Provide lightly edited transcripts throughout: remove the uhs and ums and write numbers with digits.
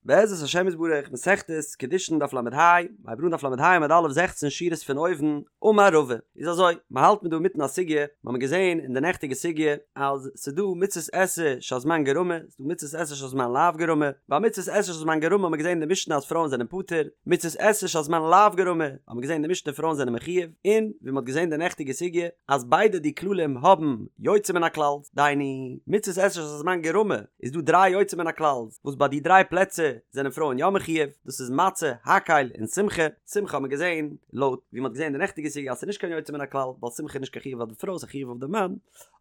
בעזרת השם יתברך, מסכת קידושין דף ל"ה, מ'הייבט אן דף ל"ה עמוד א' זעכצן שורות פון אויבן, אמר רבא, איז אזוי, מ'האלט מיר דא אינמיטן א סוגיא, מ'האמיר געזען אין די נעכטיגע סוגיא אז ס'דא מצות עשה שהזמן גרמא, ס'דא מצות עשה שהזמן לאו גרמא, ביי מצות עשה שהזמן גרמא האמיר געזען אין די משנה אז פרויען זענען פטור, מצות עשה שהזמן לאו גרמא האמיר געזען אין די משנה פרויען זענען מחויב, און ווי מ'האט געזען די נעכטיגע סוגיא אז ביידע די כללים האבן יוצא מן הכלל, דהיינו מצות עשה שהזמן גרמא איז דא דריי יוצא מן הכלל וואס ביי די דריי פלעצער זענען פרויען יא מחויב, דאס איז מצה, הקהל, און שמחה, שמחה האט מען געזען לויט ווי מ'האט געזען אין די נעכטיגע סוגיא אז ס'איז נישט קיין יוצא מן הכלל ווייל שמחה איז נישט קיין חיוב אויף די פרוי ס'איז א חיוב אויף די מאן,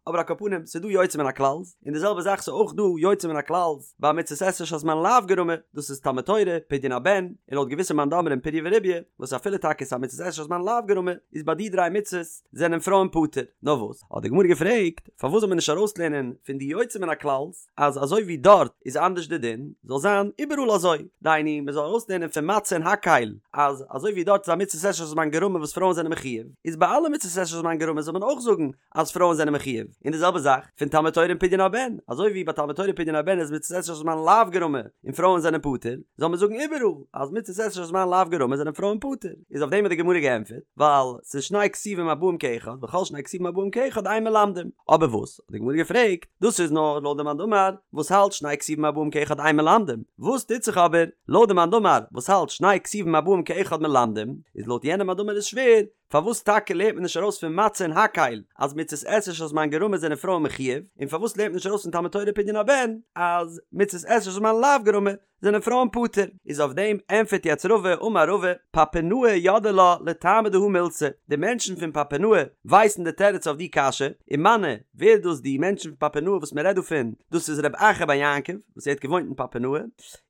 אבער על כל פנים ס'איז דא יוצא מן הכלל, און די זעלבע זאך ס'איז אויך דא יוצא מן הכלל ביי מצות עשה שהזמן לאו גרמא, דאס איז תלמוד תורה, פדיון הבן, און לויט געוויסע מאן דאמרים פריה ורביה, וואס אפילו טאקע ס'איז א מצות עשה שהזמן לאו גרמא, איז ביי די דריי מצות זענען פרויען פטור. נאר וואס? האט די גמרא געפרעגט, פארוואס זאל מען נישט ארויסלערנען פון די יוצא מן הכלל'ס אז אזוי ווי דארט איז אנדערש די דין, זאל זיין איבעראל אזוי, דהיינו מען זאל ארויסלערנען פון מצה און הקהל אז אזוי ווי דארט איז א מצות עשה שהזמן גרמא וואס פרויען זענען מחויב, איז ביי אלע מצות עשה שהזמן גרמא זאל מען אויך זאגן אז פרויען זענען מחויב, און די זעלבע זאך פון תלמוד תורה און פדיון הבן, אזוי ווי ביי תלמוד תורה און פדיון הבן איז מצות עשה שהזמן לאו גרמא און פרויען זענען פטור, זאל מען זאגן איבעראל אז מצות עשה שהזמן לאו גרמא זענען פרויען פטור, איז אויף דעם האט די גמרא געענטפערט, ווייל ס'איז שני כתובים הבאים כאחד וכל שני כתובים הבאים כאחד אין מלמדים, אבער וואס האט די גמרא געפרעגט, דאס איז נאר לויט די מאן דאמר וואס האלט שני כתובים הבאים כאחד אין מלמדים, וואס טוט זיך אבער לויט די מאן דאמר וואס האלט שני כתובים הבאים כאחד מלמדים, איז לויט יענעם מאן דאמר איז שווער, פארוואס טאקע לערנט מען נישט ארויס פון מצה און הקהל אז מצות עשה שהזמן גרמא זענען פרויען מחויב, און פארוואס לערנט מען נישט ארויס פון תלמוד תורה פדיון הבן אז מצות עשה שהזמן לאו גרמא זענען פרויען פטור? איז אויף דעם ענטפערט יעצט רבא, אמר רבא, פפונאי ידעי לה לטעמא דהא מילתא, די מענטשן פון פפונאי ווייסן די תירוץ אויף די קשיא, ומנו, ווער איז דאס די מענטשן פון פפונאי וואס מען רעדט דא פון, דאס איז רב אחא בר יעקב וואס ער האט געוואוינט אין פפונאי,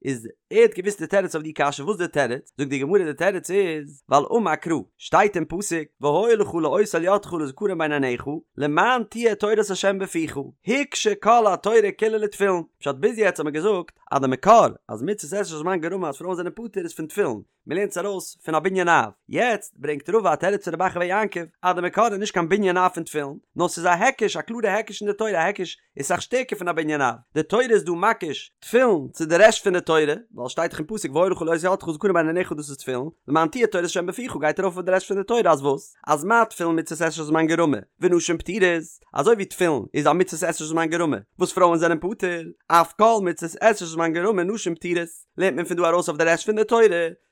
איז ער האט געוואוסט די תירוץ אויף די קשיא, וואס די תירוץ? זאגט די גמרא די תירוץ איז, ווייל אמר קרא, שטייט אין פסוק, והיה לך לאות על ידך ולזכרון בין עיניך, למען תהיה תורת ה' בפיך, הוקשה כל התורה כולה לתפילין, פשט ביז יעצט האט מען געזאגט אז די מקור אז מצות עשה שהזמן גרמא אז פרויען זענען פטור איז פון תפילין, מען לערנט עס ארויס פון א בנין אב, יעצט ברענגט רבא א תירוץ פון רב אחא בר יעקב אז די מקור איז נישט קיין בנין אב פון תפילין, נאר ס'איז א היקש, א קלארע היקש אין די תורה, א היקש איז סאך שטערקער פון א בנין אב, די תורה איז דא מקיש תפילין צו די רעשט פון די תורה, ווייל שטייט דאך אין פסוק והיה לך לאות על ידך ולזכרון בין עיניך דאס איז תפילין, למען תהיה תורת ה' בפיך גייט ארויף אויף די רעשט פון די תורה אז וואס? אז מה תפילין מצות עשה שהזמן גרמא ונשים פטורות, אזוי ווי תפילין איז א מצות עשה שהזמן גרמא וואס פרויען זענען פטור, אף כל מצות עשה שהזמן גרמא נשים פטורות, לערנט מען פון דא ארויס אויף די רעשט פון די תורה,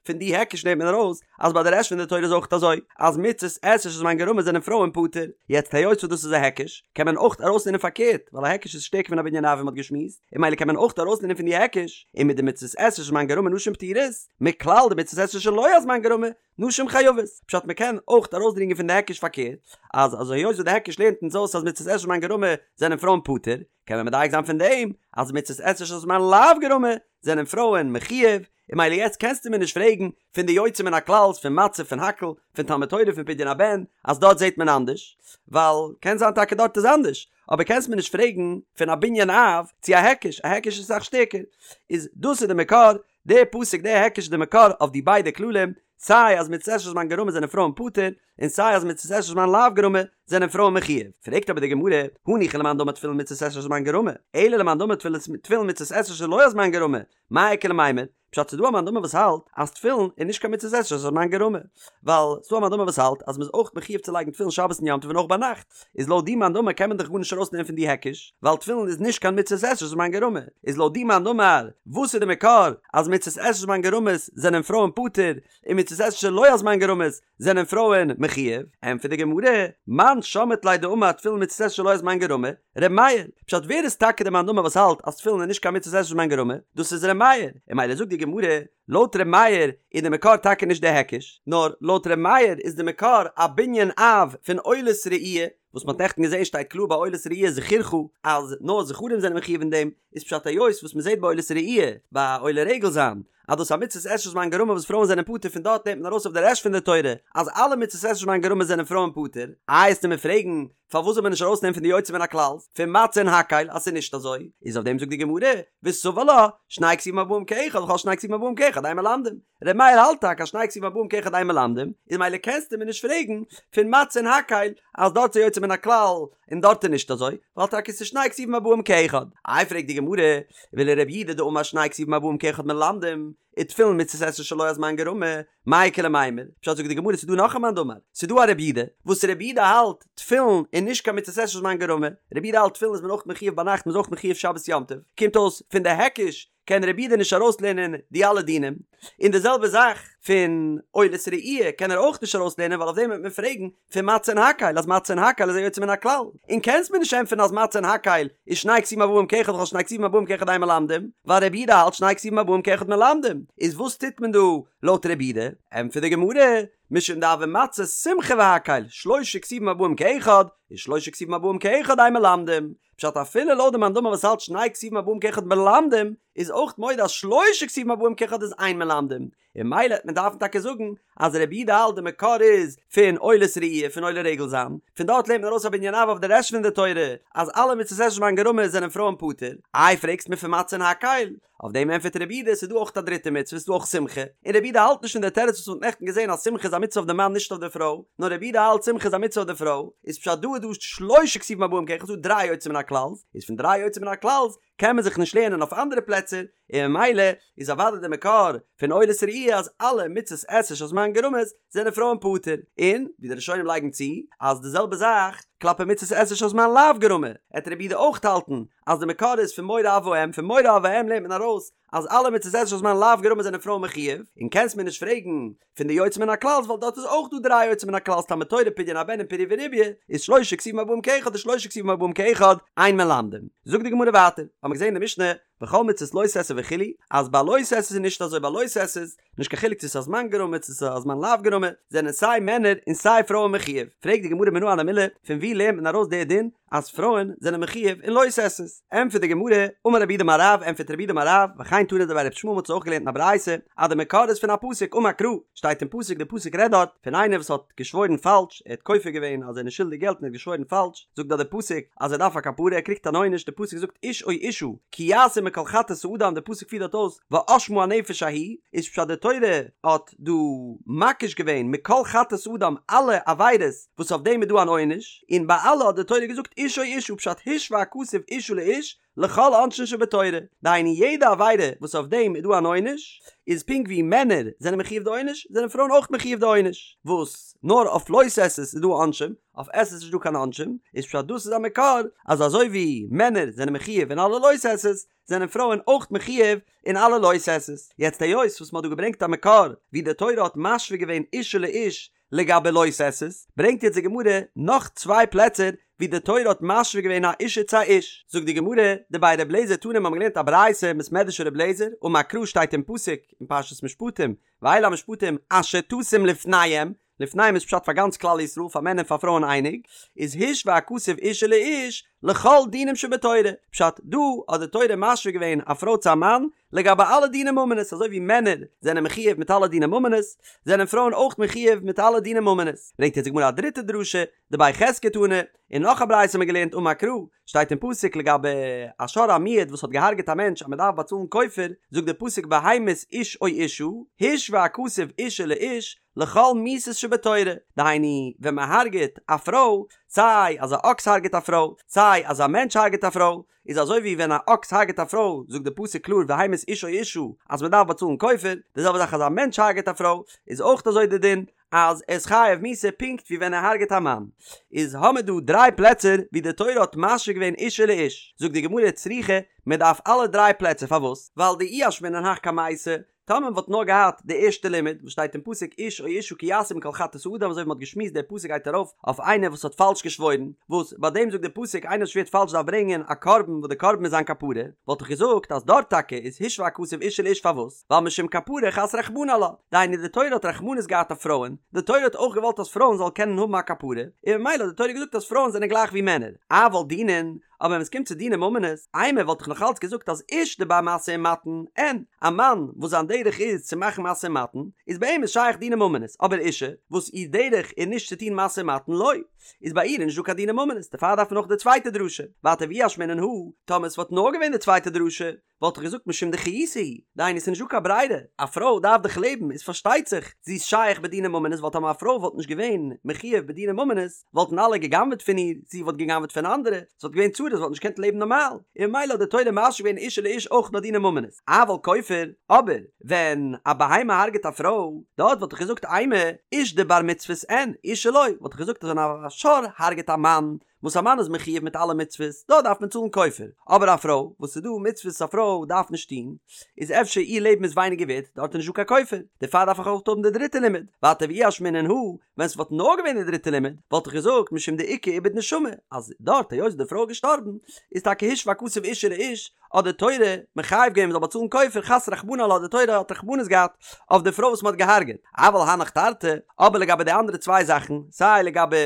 פון די היקש נעמט מען ארויס אז ביי די רעשט פון די תורה איז אויך אזוי אז מצות עשה שהזמן גרמא זענען פרויען פטור, יעצט היות וואס דאס איז א היקש קען מען אויך ארויסלערנען פארקערט ווייל א היקש איז שטערקער פון א בנין אב ווי מ'האט געשמועסט און ממילא קען מען אויך ארויסלערנען פון די היקש ומדמצות עשה שהזמן גרמא נשים פטורות מכלל דמצות עשה שלא הזמן גרמא נשים חייבות, פשט מ'קען אויך ארויסדרינגען פון די היקש פארקערט אז אזוי היות וואס די היקש לערנט אונז אויס אז מצות עשה שהזמן גרמא זענען פרויען פטור קען מען מדייק זיין פון דעם אז מצות עשה שהזמן לאו גרמא זענען פרויען מחויב און ממילא יעצט קענסטו מיר נישט פרעגן פון די יוצא מן הכלל'ס פון מצה פון הקהל פון תלמוד תורה פון פדיון הבן אז דארט זעט מען אנדערש ווייל קען זיין טאקע דארט איז אנדערש אבער קענסט מיר נישט פרעגן פון א בנין אב צו א היקש א היקש איז אסאך שטערקער איז דאס איז די מקור די פסוק די היקש איז די מקור אויף די ביידע כללים סיי אז מצות עשה שהזמן גרמא זענען פרויען פטור און סיי אז מצות עשה שהזמן לאו גרמא זענען פרויען מחויב פרעגט אבער די גמרא הניחא למאן דאמר תפילין מצות עשה שהזמן גרמא אלא למאן דאמר תפילין מצות עשה שלא הזמן גרמא מאי איכא למימר? פשט ס'דא א מאן דאמר וואס האלט אז תפילין איז נישט קיין מצות עשה שהזמן גרמא, ווייל ס'דא א מאן דאמר וואס האלט אז מ'איז אויך מחויב צו לייגן תפילין שבת און יום טוב און אויך ביינאכט, איז לויט די מאן דאמר קען מען דאך גארנישט ארויסנעמען פון די היקש, ווייל תפילין איז נישט קיין מצות עשה שהזמן גרמא, איז לויט די מאן דאמר וואס איז די מקור אז מצות עשה שהזמן גרמא'ס זענען פרויען פטור און מצות עשה שלא הזמן גרמא'ס זענען פרויען מחויב? ענטפערט די גמרא, מאן שמעת ליה דאמר תפילין מצות עשה שלא הזמן גרמא, ר' מאיר, פשט ווער איז טאקע די מאן דאמר וואס האלט אז תפילין איז נישט קיין מצות עשה שהזמן גרמא? דאס איז ר' מאיר, און ממילא זאגט די גמרא, לויט ר' מאיר איז די מקור טאקע נישט די היקש, נאר לויט ר' מאיר איז די מקור א בנין אב פון עולת ראי', וואס מ'האט נעכטן געזען שטייט קלאר ביי עולת ראי' זכורך אז נאר זכרים זענען מחויב אין דעם, איז פשט היות וואס מ'זעט ביי עולת ראי' ביי עולה רגל זיין אז דאס איז א מצות עשה שהזמן גרמא וואס פרויען זענען פטור פון דארט נעמט מען ארויס אויף די רעשט פון די תורה אז אלע מצות עשה שהזמן גרמא זענען פרויען פטור, איי עסטו מיר פרעגן? פארוואס זאל מען נישט ארויסנעמען פון די יוצא מן הכלל פון מצה און הקהל אז ס'איז נישט אזוי? איז אויף דעם זאגט די גמרא, וסבר לה, שני כתובים הבאים כאחד וכל שני כתובים הבאים כאחד אין מלמדים. ר' מאיר האלט טאקע אז שני כתובים הבאים כאחד אין מלמדים, איז ממילא קענסטו מיר נישט פרעגן פון מצה און הקהל אז דארט איז יוצא מן הכלל און דארט איז נישט אזוי, ווייל טאקע ס'איז שני כתובים הבאים כאחד. איי פרעגט די גמרא, ולרבי יהודה דאמר שני כתובים הבאים כאחד מלמדים, ותפילין מצות עשה שלא הזמן גרמא, מאי איכא למימר? פשט זאגט די גמרא ס'איז דא נאך א מאן דאמר, ס'איז דא א רבי יהודה, וואס רבי יהודה האלט תפילין איז נישט קיין מצות עשה שהזמן גרמא, רבי יהודה האלט תפילין איז מען אויך מחיוב ביינאכט מ'איז אויך מחיוב שבת יום טוב, קומט אויס פון די היקש קען רבי יהודה נישט ארויסלערנען די אלע דינים, און די זעלבע זאך פון עולת ראי' קען ער אויך נישט ארויסלערנען ווייל אויף דעם וועט מען פרעגן פון מצה און הקהל אז מצה און הקהל איז א יוצא מן הכלל, און קענסט מיר נישט ענטפערן אז מצה און הקהל איז שני כתובים הבאים כאחד וכל שני כתובים הבאים כאחד אין מלמדים, ווייל רבי יהודה האלט שני כתובים הבאים כאחד מלמדים, איז וואס טוט מען דא לויט רבי יהודה? ענטפערט די גמרא, משום דהוה מצה שמחה והקהל, שלשה כתובים הבאים כאחד, איז שלשה כתובים הבאים כאחד אין מלמדים, פשט אפילו לויט די מאן דאמר וואס האלט שני כתובים הבאים כאחד מלמדים, איז אויך מודה אז שלשה כתובים הבאים כאחד איז אין מלמדים, און ממילא וועט מען דארפן טאקע זאגן אז רבי יהודה האלט די מקור איז פון עולת ראי' פון עולה רגל זיין, פון דארט לערנט מען ארויס א בנין אב אויף די רעשט פון די תורה אז אלע מצות עשה שהזמן גרמא זענען פרויען פטור, איי פרעגסט מיר פון מצה און הקהל? אויף דעם ענטפערט רבי יהודה ס'איז דא אויך א דריטע מצוה ס'איז דא אויך שמחה, און רבי יהודה האלט נישט פון די תירוץ וואס מ'האט נעכטן געזען אז שמחה איז א מצוה אויף די מאן נישט אויף די פרוי, נאר רבי יהודה האלט שמחה איז א מצוה אויף די פרוי, איז פשט דא איז דא שלשה כתובים הבאים כאחד ס'איז דא דריי יוצא מן הכלל'ס, איז פון דריי יוצא מן הכלל'ס קען מען זיך נישט לערנען אויף אנדערע פלעצער, און ממילא איז אוודאי די מקור פון עולת ראי' אז אלע מצות עשה שהזמן גרמא'ס זענען פרויען פטור, און ווי די ראשונים לייגן צו אז די זעלבע זאך כלפי מצות עשה שהזמן לאו גרמא, עט רבי יהודה אויך האלטן אז די מקור איז פון מורא אב ואם, פון מורא אב ואם לערנט מען ארויס אז אלע מצות עשה שהזמן לאו גרמא זענען פרויען מחיוב, און קענסט מיר נישט פרעגן פון די יוצא מן הכלל'ס ווייל דארט איז אויך דא דריי יוצא מן הכלל'ס תלמוד תורה פדיון הבן און פריה ורביה איז שלשה כתובים הבאים כאחד און שלשה כתובים הבאים כאחד אין מלמדים. זאגט די גמרא ווייטער, האמיר געזען אין די משנה וכל מצות לא תעשה וכו' אז ביי לא תעשה איז נישט אזוי ביי לא תעשה איז נישט קיין חילוק צו ס'איז א זמן גרמא צו ס'איז א זמן לאו גרמא זענען סיי מענער און סיי פרויען מחיוב פרעגט די גמרא מנא הני מילי פון ווי לערנט מען ארויס די דין אז פרויען זענען מחיוב אין לא תעשה'ס? ענטפערט די גמרא, אמר רב יהודה אמר רב, ענטפערט רב יהודה אמר רב, וכן תנא דבי רבי ישמעאל מ'האט עס אויך געלערנט אין א ברייתא, אז די מקור איז פון א פסוק, אמר קרא, שטייט אין פסוק, די פסוק רעדט דארט פון איינער וואס האט געשוואוירן פאלש, ער האט כופר געווען אז ער איז נישט שולדיג געלט און ער האט געשוואוירן פאלש, זאגט דארט די פסוק אז ער דארף א כפרה, ער קריגט אן עונש, די פסוק זאגט איש או אשה, כי יעשו מכל חטאת האדם, די פסוק פירט דארט אויס ואשמה הנפש ההיא, איז פשט די תורה האט דא מקיש געווען מכל חטאת האדם אלע עבירות וואס אויף דעם איז דא אן עונש, און ביי אלע האט די תורה געזאגט איש או אשה פשט השוה הכתוב אשה לאיש לכל עונשין שבתורה, דהיינו יעדע עבירה וואס אויף דעם איז דא אן עונש, איז פונקט ווי מענער זענען מחיוב די עונש, זענען פרויען אויך מחיוב די עונש, וואס נאר אויף לא תעשה'ס איז דא עונשים, אויף עשה'ס איז נישט דא קיין עונשים, איז פשט דאס איז א מקור אז אזוי ווי מענער זענען מחיוב אין אלע לא תעשה'ס, זענען פרויען אויך מחיוב אין אלע לא תעשה'ס. יעצט היות וואס מ'האט דא געברענגט א מקור ווי די תורה האט משווה געווען אשה לאיש לגבי לא תעשה'ס, ברענגט יעצט די גמרא נאך צוויי פלעצער ווי די תורה האט משווה געווען א אשה צו א איש. זאגט די גמרא, דבי ר' אליעזר תנא מ'האבן געלערנט א ברייתא אין בית מדרש ר' אליעזר, אמר קרא שטייט אין פסוק אין פרשת משפטים, ואלה המשפטים אשר תשים לפניהם, לפניהם איז פשט פאר גאנץ כלל ישראל פאר מענער און פאר פרויען אייניג, איז השוה הכתוב אשה לאיש לכל דינים שבתורה, פשט, דא האט די תורה משווה געווען א פרוי צו א מאן לגבי אלע דיני ממונות, אזוי ווי מענער זענען מחיוב מיט אלע דיני ממונות, זענען פרויען אויך מחיוב מיט אלע דיני ממונות. ברענגט יעצט די גמרא א דריטע דרשה, דבי חזקיה תנא, און נאך א ברייתא האט מען געלערנט אמר קרא, שטייט אין פסוק לגבי א שור המועד וואס האט געהארגעט א מענטש אז מען דארף באצאלן כופר, זאגט די פסוק והמית איש או אשה, השוה הכתוב אשה לאיש, לכל מיתות שבתורה, דהיינו ווען מען הרג'עט א פרוי, סיי אז א אקס הרג'עט א פרוי, סיי אז א מענטש הרג'עט א פרוי, איז אזוי ווי ווען א אקס הרג'עט א פרוי, זאגט די פסוק קלאר והמית איש או אשה אז מען דארף באצאלן כופר, די זעלבע זאך אז א מענטש הרג'עט א פרוי, איז אויך אזוי די דין, אז ער איז חייב מיתה פונקט ווי ווען ער הרג'עט א מאן. איז האמער דא דריי פלעצער ווי די תורה האט משווה געווען אשה לאיש, זאגט די גמרא צריכא, מען דארף אלע דריי פלעצער פארוואס? ווייל דאי אשמעינן הך קמייתא, טאמער מען וואלט נאר געהאט די ערשטע לימוד וואס שטייט אין פסוק איש או אשה כי יעשו מכל חטאת האדם אזוי ווי מען האט געשמועסט דער פסוק גייט ארויף אויף איינער וואס האט פאלש געשוואוירן וואס ביי דעם זאגט דער פסוק איינער וואס שווערט פאלש דארף ברענגען א קרבן וואס די קרבן איז זיין כפרה וואלט איך געזאגט אז דארט טאקע איז השוה הכתוב אשה לאיש פארוואס ווייל משום כפרה חס רחמנא עלה דהיינו די תורה האט רחמנות געהאט אויף פרויען די תורה האט אויך געוואלט אז פרויען זאלן קענען האבן א כפרה און ממילא האט די תורה געזאגט אז פרויען זענען גלייך ווי מענער אבל דינין אבער ווען עס קומט צו דיני ממונות, אימא וואלט איך נאך אלץ געזאגט אז איש דבר משא ומתן, אין, א מאן וואס זיין דרך איז צו מאכן משא ומתן, איז ביי אים איז שייך דיני ממונות, אבער אישה, וואס איר דרך איז נישט צו טון משא ומתן, לא. איז ביי איר איז נישט דא קיין דיני ממונות, דערפאר דארף מען אויך די צווייטע דרשה, ווייטער ואי אשמעינן הא, טאמער עס וואלט נאר געווען די צווייטע דרשה, וואלט איך געזאגט משום דחיותה היא, דהיינו ס'איז נישט דא קיין ברירה, א פרוי דארף דאך לעבן, איז פארשטייט זיך זי איז שייך בדיני ממונות, ווייל טאמער א פרוי וואלט נישט געווען מחויב בדיני ממונות, וואלטן אלע גע'גנב'עט פון איר, זי וואלט גע'גנב'עט פון אנדערע, ס'וואלט געווען צרות, זי וואלט נישט געקענט לעבן נארמאל, און ממילא האט די תורה משהה געווען אשה לאיש אויך ביי דיני ממונות. אבל כופר, אבער ווען א בהמה הרג'עט א פרוי, דארט וואלט איך געזאגט אימא, איש דבר מצוות אין, אשה לא, וואלט איך געזאגט אז ווען א שור הרג'עט א מאן, וואס א מאן איז מחויב מיט אלע מצוות, דארט דארף מען צאלן כופר, אבער א פרוי, וואס ס'איז דא מצוות א פרוי דארף נישט טון, איז אפשר איר לעבן איז ווייניגער ווערט, דארט איז נישט דא קיין כופר, דערפאר דארף איך אויך האבן די דריטע לימוד, ווייטער ואי אשמעינן הא, ווען ס'וואלט נאר געווען די דריטע לימוד, וואלט איך געזאגט משום דאיכא איבוד נשמה, אז דארט היות די פרוי איז געשטארבן, איז טאקע השוה הכתוב אשה לאיש, האט די תורה מחייב געווען מ'זאל באצאלן כופר, חס רחמנא עלה די תורה האט רחמנות געהאט אויף די פרוי וואס מ'האט געהארגעט, אבל הנך תרתי, אבער לגבי די אנדערע צוויי זאכן, סיי לגבי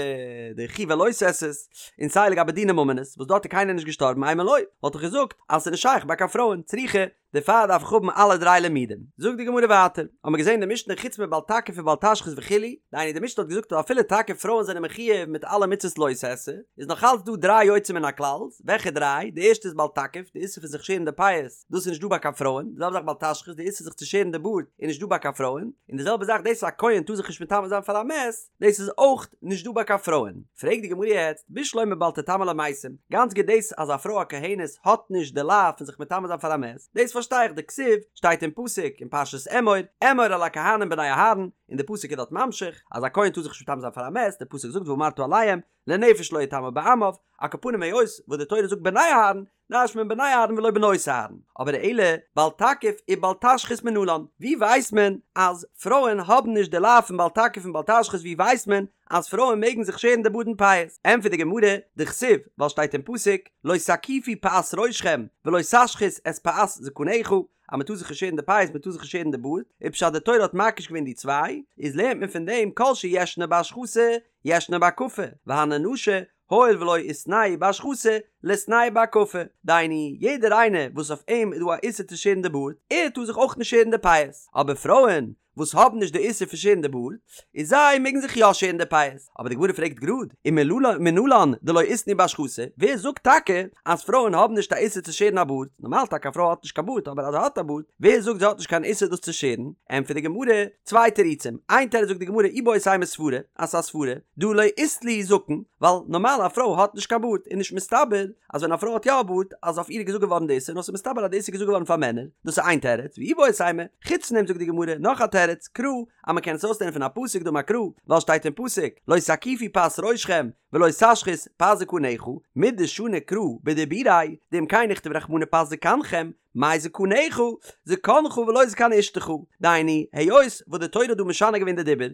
די חיובי לא תעשה'ס, און סיי לגבי דיני ממונות, וואס דארט איז קיינער נישט געשטארבן אימא לא, וואלט איך געזאגט אז ס'איז נישט שייך ביי קיין פרויען, צריכא, דערפאר דארף איך האבן אלע דריי לימודים. זאגט די גמרא ווייטער, האבן מיר געזען די משנה חוץ מבל תקיף ובל תשחית וכו', דהיינו די משנה האט געזאגט אז אפילו טאקע פרויען זענען מחויב מיט אלע מצוות לא תעשה, איז נאך אלץ דא דריי יוצא מן הכלל, וועלכע דריי? די ערשטע איז בל תקיף, די איסור פון זיך שערן די פאות, דאס איז נישט דא ביי קיין פרויען, די זעלבע זאך בל תשחית, די איסור זיך צו שערן די בארד איז נישט דא ביי קיין פרויען, און די זעלבע זאך דאס אז א כהן טאר זיך נישט מטמא זיין פאר א מת, דאס איז אויך נישט דא ביי קיין פרויען. פרעגט די גמרא יעצט, בשלמא בל תטמא למתים, גאנץ גוט דאס אז א פרוי א כהנת האט נישט די לאו פון זיך מטמא זיין פאר א מת, דאס פארשטיי איך, דכתיב, שטייט אין פסוק אין פרשת אמור, אמור אל הכהנים בני אהרן, און די פסוק איז דארט ממשיך אז א כהן טאר זיך נישט מטמא זיין פאר א מת, די פסוק זאגט ואמרת אליהם, לנפש לא יטמא בעמיו, על כל פנים היות וואס די תורה זאגט בני אהרן, דרש'נט מען בני אהרן ולא בנות אהרן, אבער אלא בל תקיף ובל תשחית מנלן, ווי ווייסט מען אז פרויען האבן נישט די לאו פון בל תקיף און בל תשחית ווי ווייסט מען אז פרויען מעגן זיך שערן די בארד און פאות? ענטפערט די גמרא, דכתיב, ווייל שטייט אין פסוק, לא תקיפו פאת ראשכם ולא תשחית את פאת זקנך, אז מען טאר זיך נישט שערן די פאות מען טאר זיך נישט שערן די בארד, איז פשט די תורה האט מקיש געווען די צוויי, איז לערנט מען פון דעם כל שישנו בהשחתה ישנו בהקפה, והני נשי הואיל ולא איתנהו בהשחתה, ליתנהו בהקפה, דהיינו, יעדער איינער וואס אויף אים איז דא א איסור צו שערן די בארד, ער טאר זיך אויך נישט שערן די פאות, אבער פרויען וואס האבן נישט די איסור פון שערן די בארד, איז זיי מעגן זיך יא שערן די פאות. אבער די גמרא פרעגט גראד, ומנלן דלא איתנהו בהשחתה, ווער זאגט טאקע אז פרויען האבן נישט א איסור צו שערן א בארד, נארמאל טאקע א פרוי האט נישט קיין בארד, אבער אז זי האט א בארד, ווער זאגט זי האט נישט קיין איסור דאס צו שערן? ענטפערט די גמרא, צוויי תירוצים, איין תירוץ זאגט די גמרא איבעית אימא סברא, אז ס'איז א סברא, דהא לא אית להו זקן, ווייל נארמאל א פרוי האט נישט קיין בארד, איז נישט מסתבר אז ווען א פרוי האט יא א בארד אז אויף איר איז געזאגט געווארן די איסור, נאר ס'איז מסתבר אז די איסור איז געזאגט געווארן פאר מענער, דאס איז איין תירוץ, ואיבעית אימא, חוץ פון דעם זאגט די גמרא נאך א תירוץ, קרא, אז מ'קען עס אויסלערנען פון א פסוק דאמר קרא, ווייל שטייט אין פסוק, לא תקיפו פאת ראשכם ולא תשחית פאת זקנך, מדשני קרא בדיבוריה, דאם כן נכתוב רחמנא פאת זקנכם, מאי זקנך, זקנך ולא זקן אשתך, דהיינו, היות וואס די תורה האט דא משנה געווען די דיבור,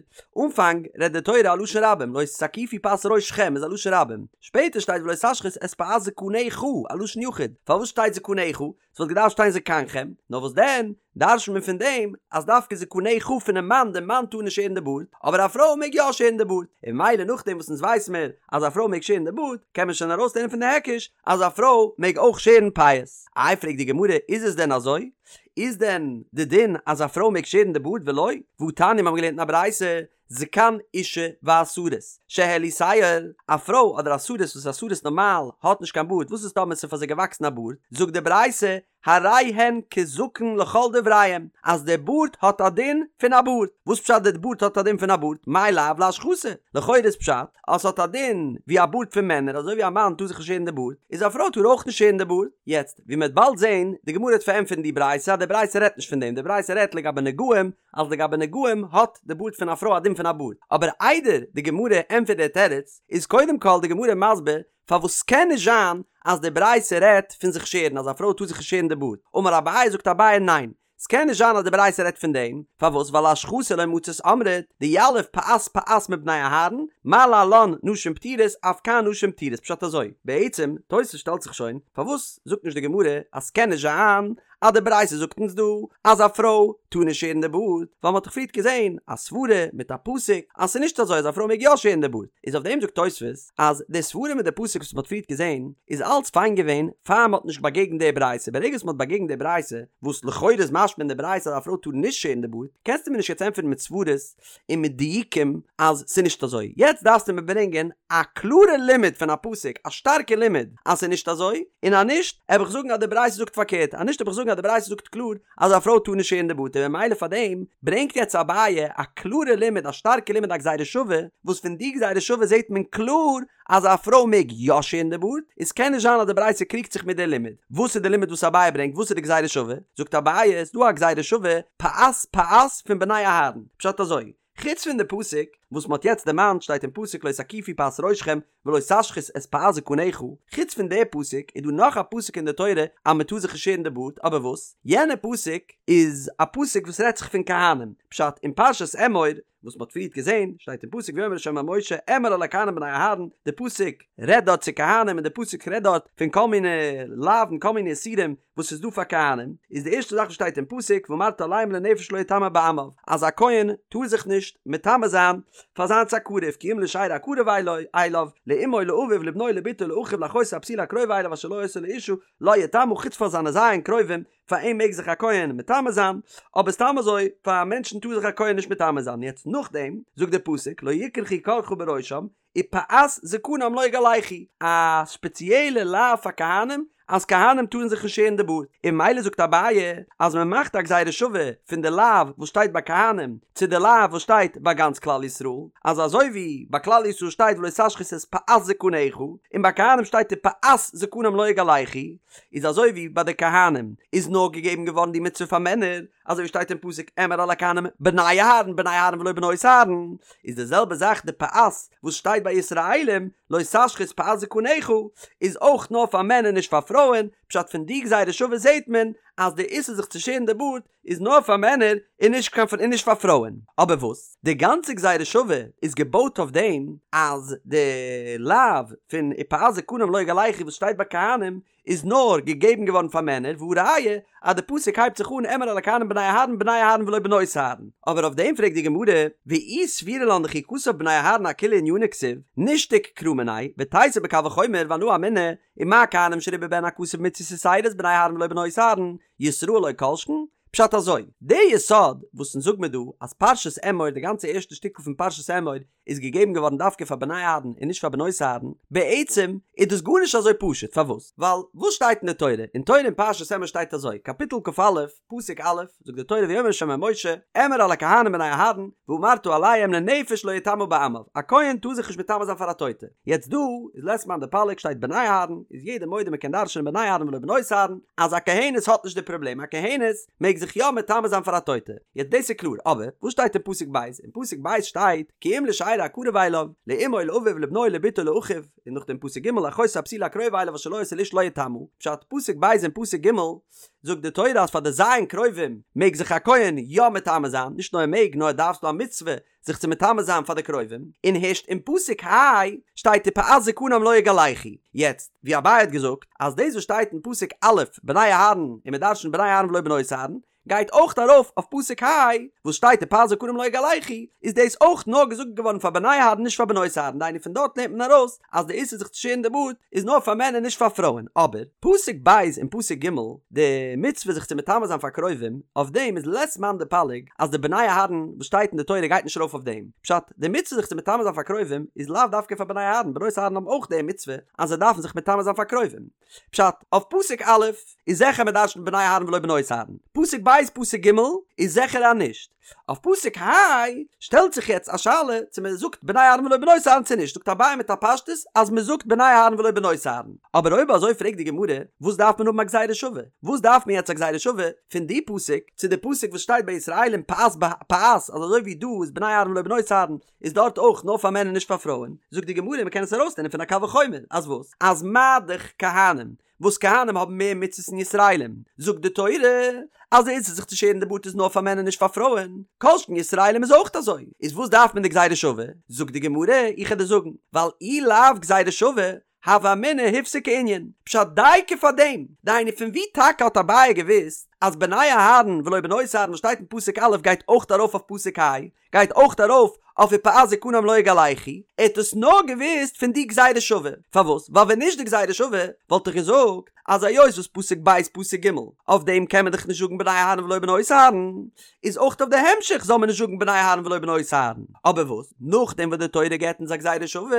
אנפאנג רעדט די תורה א לשון רבים, לא תקיפו פאת ראשכם איז א לשון רבים, שפעטער שטייט ולא תשחית את פאת זקנך, א לשון יחיד, פארוואס שטייט זקנך? ס'וואלט געדארפט שטיין זקנכם, נאר וואס דען, דרש'נט מען פון דעם אז דווקא זקנך פונעם מאן, דער מאן טאר נישט שערן די בארד, אבער א פרוי מעג יא שערן די בארד, און ממילא נאכדעם וואס אונז ווייס מיר אז א פרוי מעג שערן די בארד, קען מען שוין ארויסלערנען פון די היקש אז א פרוי מעג אויך שערן פאות. איי פרעגט די גמרא איז עס דען אזוי? איז דען די דין אז א פרוי מעג שערן די בארד ולא? והתניא מיר האבן געלערנט אין א ברייתא זקן אשה והסריס שהעלו שער, א פרוי אדער א סריס וואס א סריס נארמאל האט נישט קיין בארד וואס איז טאמער ס'איז פאר זיי געוואקסן א בארד זאגט די ברייתא הרי הן כזקן לכל דבריהם, אז די בארד האט א דין פון א בארד. וואס פשט די בארד האט א דין פון א בארד? מאי לאו להשחתה? לכאורה איז פשט אז ס'האט א דין ווי א בארד פון מענער, אזוי ווי א מאן טאר זיך נישט שערן די בארד, איז א פרוי טאר אויך נישט שערן די בארד. יעצט, ווי מ'וועט באלד זען, די גמרא וועט פארענטפערן די ברייתא אז די ברייתא רעדט נישט פון דעם, די ברייתא רעדט לגבי נגעים, אז לגבי נגעים האט די בארד פון א פרוי א דין פון א בארד. אבער איידער די גמרא ענטפערט די תירוץ, איז קודם כל די גמרא מסביר פארוואס ס'קען נישט זיין אז די ברייתא רעדט פון זיך שערן אז א פרוי טאר זיך נישט שערן די בארד, אמר אביי זאגט אביי ניין ס'קען נישט זיין אז די ברייתא רעדט פון דעם, פארוואס ווייל להשחתה לא מצית אמרת דיליף פאת פאת מבני אהרן מה להלן נשים פטורות אף כאן נשים פטורות פשט אזוי בעצם תוס' שטעלט זיך שוין פארוואס זאגט נישט די גמרא אז ס'קען נישט זיין אז די ברייתא זאגט אונז דא אז א פרוי טאר נישט שערן די בארד, ווייל מ'האט דאך פריערט געזען א סברה מיט א פסוק אז ס'איז נישט אזוי אז א פרוי מעג יא שערן די בארד, איז אויף דעם זאגט תוספות אז די סברה מיט די פסוק וואס מ'האט פריערט געזען איז אלץ פיין געווען פאר מ'האט נישט באגעגנט די ברייתא, ברגע וואס מ'האט באגעגנט די ברייתא, וואס לכאורה איז משמע אין די ברייתא אז א פרוי טאר נישט שערן די בארד, קענסטו מיר נישט יעצט ענטפערן מיט סברות און מיט דיוקים אז ס'איז נישט אזוי. יעצט דארפסטו מיר ברענגען א קלארע לימוד פון א פסוק, א שטארקע לימוד אז ס'איז נישט אזוי, און אז נישט, העב איך זאגן אז די ברייתא זאגט פארקערט, אז נישט העב איך זאגן אז די ברייתא זאגט קלאר אז א פרוי טאר נישט שערן די בארד, און ממילא פאר דעם ברענגט יעצט אביי א קלארע לימוד, א שטארקע לימוד א גזירה שווה, וואס פון די גזירה שווה זעט מען קלאר אז א פרוי מעג יא שערן די בארד, איז קען נישט זיין אז די ברייתא קריגט זיך מיט די לימוד. וואס איז די לימוד וואס אביי ברענגט? וואס איז די גזירה שווה? זאגט אביי, ס'איז דא א גזירה שווה, פאת פאת פון בני אהרן. פשט אזוי, חוץ פון די פסוק וואס מ'האט יעצט דערמאנט שטייט אין פסוק לא תקיפו פאת ראשכם ולא תשחית את פאת זקנך, חוץ פון די פסוק איז דא נאך א פסוק אין די תורה אז מ'טאר זיך נישט שערן די בארד, אבער וואס? יענע פסוק איז א פסוק וואס רעדט זיך פון כהנים, פשט אין פרשת אמור וואס מ'האט פריערט געזען, שטייט אין פסוק ויאמר ה' אל משה אמור אל הכהנים בני אהרן, די פסוק רעדט דארט צו כהנים און די פסוק רעדט דארט פון כל מיני לאווין כל מיני איסורים וואס איז דא פאר כהנים, איז די ערשטע זאך וואס שטייט אין פסוק ואמרת אליהם לנפש לא יטמא בעמיו, אז א כהן טאר זיך נישט מטמא זיין פאר זיינס א קרוב כי אם לשארו הקרוב אליו, לאמו לאביו לבנו לבתו לאחיו לאחותו הבתולה הקרובה אליו אשר לו היתה לאשה, לא יטמא חוץ פאר זיינע ז' קרובים פאר אים מעג זיך א כהן מטמא זיין, אבער סתם אזוי פאר א מענטשן טאר זיך א כהן נישט מטמא זיין, יעצט נאכדעם זאגט דער פסוק לא יקרחו קרחה בראשם ופאת זקנם לא יגלחו, א ספעציעלע לאו פאר כהנים אז כהנים טארן זיך נישט שערן די בארד, און ממילא זאגט אביי אז מען מאכט א גזירה שווה פון די לאו וואס שטייט ביי כהנים צו די לאו וואס שטייט ביי גאנץ כלל ישראל, אז אזוי ווי ביי כלל ישראל שטייט ולא תשחית את פאת זקנך, און ביי כהנים שטייט ופאת זקנם לא יגלחו, איז אזוי ווי ביי די כהנים איז נאר געגעבן געווארן די מצוה פאר מענער, אזוי ווי שטייט אין פסוק אמור אל הכהנים בני אהרן בני אהרן ולא בנות אהרן, איז די זעלבע זאך די פאת וואס שטייט ביי ישראלים לא תשחית פאת זקנך איז אויך נאר פאר מענער נישט פאר פרויען, פשט פון די גזירה שווה זעהט מען אז די איסור זיך צו שערן די בארד איז נאר פאר מענער און נישט קיין און נישט פאר פרויען, אבער וואס די גאנצע גזירה שווה איז געבויט אויף דעם אז די לאו פון ופאת זקנם לא יגלחו וואס שטייט ביי כהנים איז נאר געגעבן געווארן פאר מענער והא ראיה אז די פסוק הייבט זיך אן אמור אל הכהנים בני אהרן בני אהרן ולא בנות אהרן, אבער אויף דעם פרעגט די גמרא ואי סבירא לן דכי כתב בני אהרן אכוליה ענינא כתיב נישתוק קרא מיניה ותיתי בקל וחומר ואנא אמינא ומה כהנים שריבה בהן הכתוב מצוות יתירות בני אהרן ולא בנות אהרן ישראל לא כל שכן, פשט אזוי, די יסוד וואס אונז זאג מיר דא אז פרשת אמור די גאנצע ערשטע שטיקל פון פרשת אמור איז געגעבן געווארן דווקא פאר בני אהרן און נישט פאר בנות אהרן, בעצם איז דאס גארנישט אזוי פשוט, פארוואס? ווייל וואס שטייט אין די תורה? אין תורה אין פרשת אמור שטייט אזוי, קאפיטל כ"א, פסוק א', זאגט די תורה ויאמר ה' אל משה, אמור אל הכהנים בני אהרן, ואמרת אליהם לנפש לא יטמא בעמיו, א כהן טאר זיך נישט מטמא זיין פאר א טויטע. יעצט דא איז לית מאן דפליג שטייט בני אהרן, איז יעדער מודה מען קען דרש'נען בני אהרן ולא בנות אהרן, אז א כהנת האט נישט די פראבלעם, א כהנת מעג זיך יא מטמא זיין פאר א טויטע, יעצט דאס איז קלאר, אבער וואס שטייט אין פסוק ב'? אין פסוק ב' שטייט כי אם לשארו הקרוב אליו, לאמו לאביו לבנו לבתו לאחיו, און נאכדעם פסוק ג' לאחותו הבתולה הקרובה אליו אשר לו היתה לאשה לא יטמא, פשט, פסוק ב' און פסוק ג' זאגט די תורה אז פאר די ז' קרובים מעג זיך א כהן יא מטמא זיין, נישט נאר ער מעג נאר ער דארף ס'דא א מצוה זיך צו מטמא זיין פאר די קרובים, און הערשט אין פסוק ה' שטייט ופאת זקנם לא יגלחו. יעצט, ווי אביי האט געזאגט, אז דאס וואס שטייט אין פסוק א' בני אהרן און מען דרש'נט בני אהרן ולא בנות אהרן, גייט אויך ארויף אויף פסוק ה' וואס שטייט ופאת זקנם לא יגלחו, איז דאס אויך נאר געזאגט געווארן פאר בני אהרן נישט פאר בנות אהרן, דהיינו פון דארט לערנט מען ארויס אז די איסור זיך צו שערן די בארד איז נאר פאר מענער נישט פאר פרויען, אבער פסוק ב' און פסוק ג' די מצוה זיך צו מטמא זיין פאר קרובים, אויף דעם איז לית מאן דפליג אז די בני אהרן וואס שטייט אין די תורה גייט נישט ארויף אויף דעם, פשט, די מצוה זיך צו מטמא זיין פאר קרובים איז לאו דווקא פאר בני אהרן, בנות אהרן האבן אויך די מצוה אז זיי דארפן זיך מטמא זיין פאר קרובים. פשט, אויף פסוק א' איז זיכער מען דרש'נט בני אהרן ולא בנות אהרן, פסוק ב' פסוק ג' איז זיכער אז נישט, אויף פסוק ה' שטעלט זיך יעצט א שאלה צו מען זאגט בני אהרן ולא בנות אהרן צו נישט, זאגט אביי מיט א פשטות אז מען זאגט בני אהרן ולא בנות אהרן, אבער אויב אזוי פרעגט די גמרא וואס דארף מען האבן א גזירה שווה, וואס דארף מען יעצט א גזירה שווה פון די פסוק צו די פסוק וואס שטייט ביי ישראלים פאת פאת אז אזוי ווי דא איז בני אהרן ולא בנות אהרן איז דארט אויך נאר פאר מענער נישט פאר פרויען, זאגט די גמרא מ'קען עס ארויסלערנען פון א קל וחומר, אז וואס? אז מה דאך כהנים, וואס כהנים האבן מער מצוות פון ישראלים, זאגט די תורה אז די איסור זיך צו שערן די בארד איז נאר פאר מענער נישט פאר פרויען, כל שכן ישראלים איז אויך אזוי, איז וואס דארף מען די גזירה שווה? זאגט די גמרא, איך וועל דיר זאגן, ווייל אי לאו גזירה שווה, הוה אמינא הפסיק הענין, פשט דייקא פאר דעם, דהיינו פון ווי טאקע האט אביי געוואוסט? אז בני אהרן ולא בנות אהרן וואס שטייט אין פסוק א' גייט אויך ארויף אויף פסוק ה', גייט אויך ארויף אויף ופאת זקנם לא יגלחו, ער האט עס נאר געוואוסט פון די גזירה שווה, פארוואס? ווייל ווען נישט די גזירה שווה וואלט איך געזאגט אז היות וואס פסוק ב' פסוק ג' אויף דעם קען מען דאך נישט זאגן בני אהרן ולא בנות אהרן, איז אויך אויף די המשך זאל מען נישט זאגן בני אהרן ולא בנות אהרן, אבער וואס נאכדעם וואס די תורה געבט אונז א גזירה שווה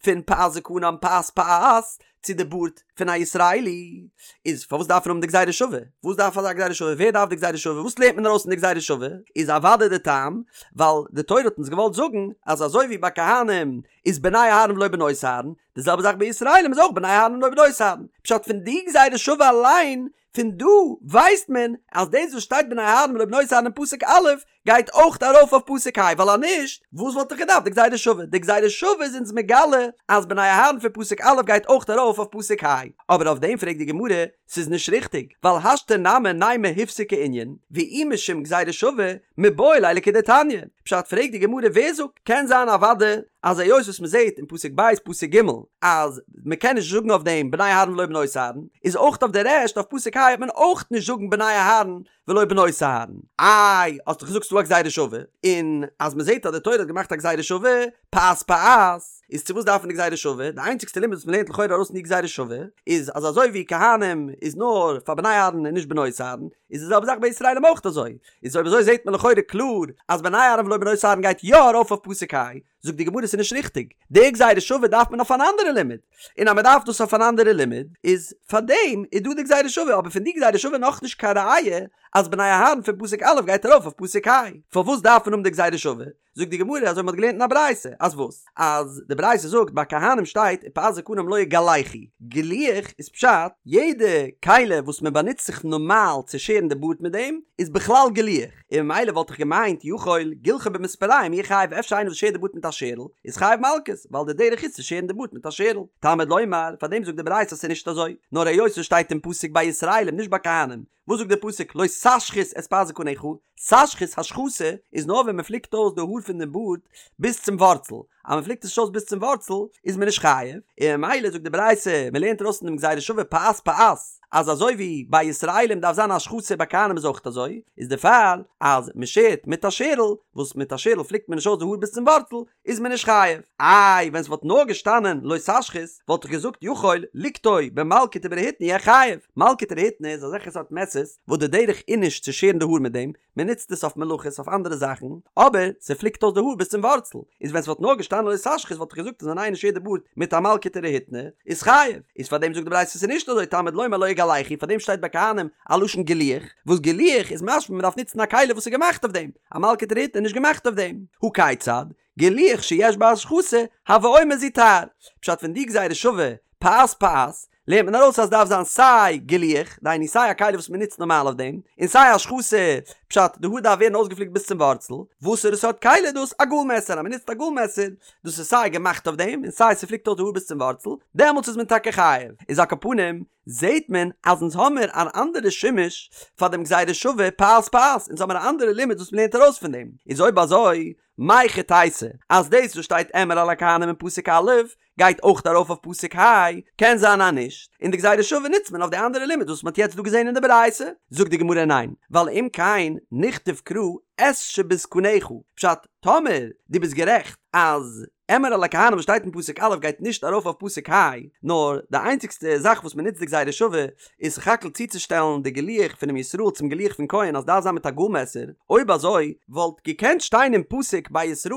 פון פאת זקנם פאת פאת צו די בארד פון א ישראלי, איז פארוואס דארף מען האבן די גזירה שווה? וואס דארף אזא גזירה שווה? ווער דארף די גזירה שווה? וואס לערנט מען ארויס פון די גזירה שווה? איז אוודאי די טעם ווייל די תורה האט אונז געוואלט זאגן אז אזוי ווי ביי כהנים איז בני אהרן ולא בנות אהרן, די זעלבע זאך ביי ישראלים איז אויך בני אהרן ולא בנות אהרן. פשט פון די גזירה שווה אליין פון דא ווייסט מען אז דאס וואס שטייט בני אהרן ולא בנות אהרן אין פסוק א' גייט אויך ארויף אויף פסוק ה' ווייל אז נישט וואס וואלט איך געדארפט די גזירה שווה? די גזירה שווה איז אונז מגלה אז בני אהרן פון פסוק א' גייט אויך ארויף אויף פסוק ה' אבער אויף דעם פרעגט די גמרא ס'איז נישט ריכטיג ווייל השתא נמי נימא הופסק הענין ואי משום גזירה שווה מיבעי ליה לכדתניא פשט פרעגט די גמרא ווער זאגט קען זיין אוודאי אז היות וואס מ'זעט אין פסוק ב' פסוק ג' אז מ'קען נישט זאגן אויף דעם בני אהרן ולא בנות אהרן, איז אויך אויף די רעשט אויף פסוק ה' וועט מען אויך נישט זאגן בני אהרן ולא בנות אהרן. איי, האסט דאך געזאגט ס'דא א גזירה שווה, און אז מ'זעט אז די תורה האט געמאכט א גזירה שווה, פאת פאת, איז צו וואס דארף מען די גזירה שווה? די איינציגסטע לימוד וואס מ'לערנט לכאורה ארויס פון די גזירה שווה, איז אז אזוי ווי כהנים איז נאר פאר בני אהרן און נישט בנות אהרן, איז די זעלבע זאך ביי ישראלים אויך אזוי, איז אויב אזוי זעט מען לכאורה קלאר אז בני אהרן ולא בנות אהרן גייט יא ארויף אויף פסוק ה', זאגט די גמרא ס'איז נישט ריכטיג, די גזירה שווה דארף מען אויף אן אנדערע לימוד, און אז מ'דארף דאס אויף אן אנדערע לימוד, איז פארדעם איז דא די גזירה שווה, אבער פון די גזירה שווה נאכנישט קיין ראיה אז בני אהרן פון פסוק א' גייט ארויף אויף פסוק ה', פארוואס דארף מען האבן די גזירה שווה? זאגט די גמרא אזוי מ'האט געלערנט אין א ברייתא, אז וואס? אז די ברייתא זאגט ביי כהנים שטייט ופאת זקנם לא יגלחו, גילוח איז פשט יעדע כלי וואס מען באנוצט זיך נארמאל צו שערן די בארד מיט דעם איז בכלל גילוח, און ממילא וואלט איך געמיינט יכול גילחו במספריים יהא חייב אפשר איינער וואס שערט די בארד מיט א שערל איז חייב מלקות ווייל די דרך איז צו שערן די בארד מיט א שערל, תלמוד לומר פאר דעם זאגט די ברייתא אז ס'איז נישט אזוי נאר היות עס שטייט אין פסוק ביי ישראלים נישט ביי כהנים וואס זאגט דער פסוק לא תשחית את פאת זקנך, תשחית השחתה איז נאר ווען מען פליקט אויס די האר פון דעם בארד ביז צום ווארצל, אז מען פליקט עס נישט אויס ביז צום ווארצל איז מען נישט חייב, און ממילא זאגט די ברייתא מען לערנט ארויס פון דעם גזירה שווה פאת פאת אז אזוי ווי ביי ישראלים דארף זיין השחתה ביי כהנים איז אויך אזוי, איז דערפאר אז מען שערט מיט א שערל, וואס מיט א שערל פליקט מען נישט אויס די האר ביז צום ווארצל, איז מען נישט חייב. איי ווען ס'וואלט נאר געשטאנען לא תשחית וואלט איך געזאגט יכול ליקטו במלקט וברהיטני יהא חייב. מלקט ורהיטני איז אזעלכע סארט מעסערס וואס די דרך איז נישט צו שערן די האר מיט דעם, מען נוצט עס אויף מלאכות אויף אנדערע זאכן, אבער ס'פליקט אויס די האר ביז צום ווארצל, איז ווען ס'וואלט נאר געשטאנען לא תשחית וואלט איך געזאגט אז ווען איינער שערט די בארד מיט א מלקט ורהיטני איז חייב. איז פארדעם זאגט די ברייתא ס'איז נישט אזוי תלמוד לומר לא יגלחו פארדעם שטייט ביי כהנים א לשון גילוח, וואס גילוח איז משמע מ'דארף נוצן א כלי וואס איז געמאכט אויף דעם, א מלקט ורהיטני איז נישט געמאכט אויף דעם. הא כיצד? גילוח שיש בו השחתה, הוי אומר זו תער. פשט פון די גזירה שווה, פאת פאת, לערנט מען ארויס אז דארף זיין סיי גילוח, דהיינו סיי א כלי וואס מען נוצט נארמאל אויף דעם, און סיי השחתה, פשט, די האר דארף ווערן אויסגעפליקט ביז צום ווארצל. וואסערע סארט כלי איז דאס? א גאל מעסער, אז מען נוצט א גאל מעסער, דאס איז סיי געמאכט אויף דעם, און סיי ס'פליקט אויס די האר ביז צום ווארצל, דעמאלטס איז מען טאקע חייב. איז על כל פנים, זעהט מען אז אונז האמיר אן אנדערע שימוש פאר דעם גזירה שווה פאת פאת, אונז האמיר א אנדערע לימוד וואס מ'לערנט ארויס פון דעם, איז אויב אזוי מהיכי תיתי אז דאס וואס שטייט אמור אל הכהנים אין פסוק א' גייט אויך ארויף אויף פסוק ה', קען זיין אז נישט, און די גזירה שווה נוצט מען אויף די אנדערע לימוד וואס מ'האט יעצט דא געזעהן אין די ברייתא, זאגט די גמרא ניין, ווייל אם כן נכתוב קרא את שבזקנך, פשט, טאמער דו ביסט גערעכט אז אמור אל הכהנים וואס שטייט אין פסוק א' גייט נישט ארויף אויף פסוק ה', נאר די איינציגסטע זאך וואס מען נוצט די גזירה שווה איז סך הכל צוצושטעלן די גילוח פונעם ישראל צום גילוח פון כהן אז דארף זיין מיט א גאל מעסער, אויב אזוי וואלט געקענט שטיין אין פסוק ביי ישראל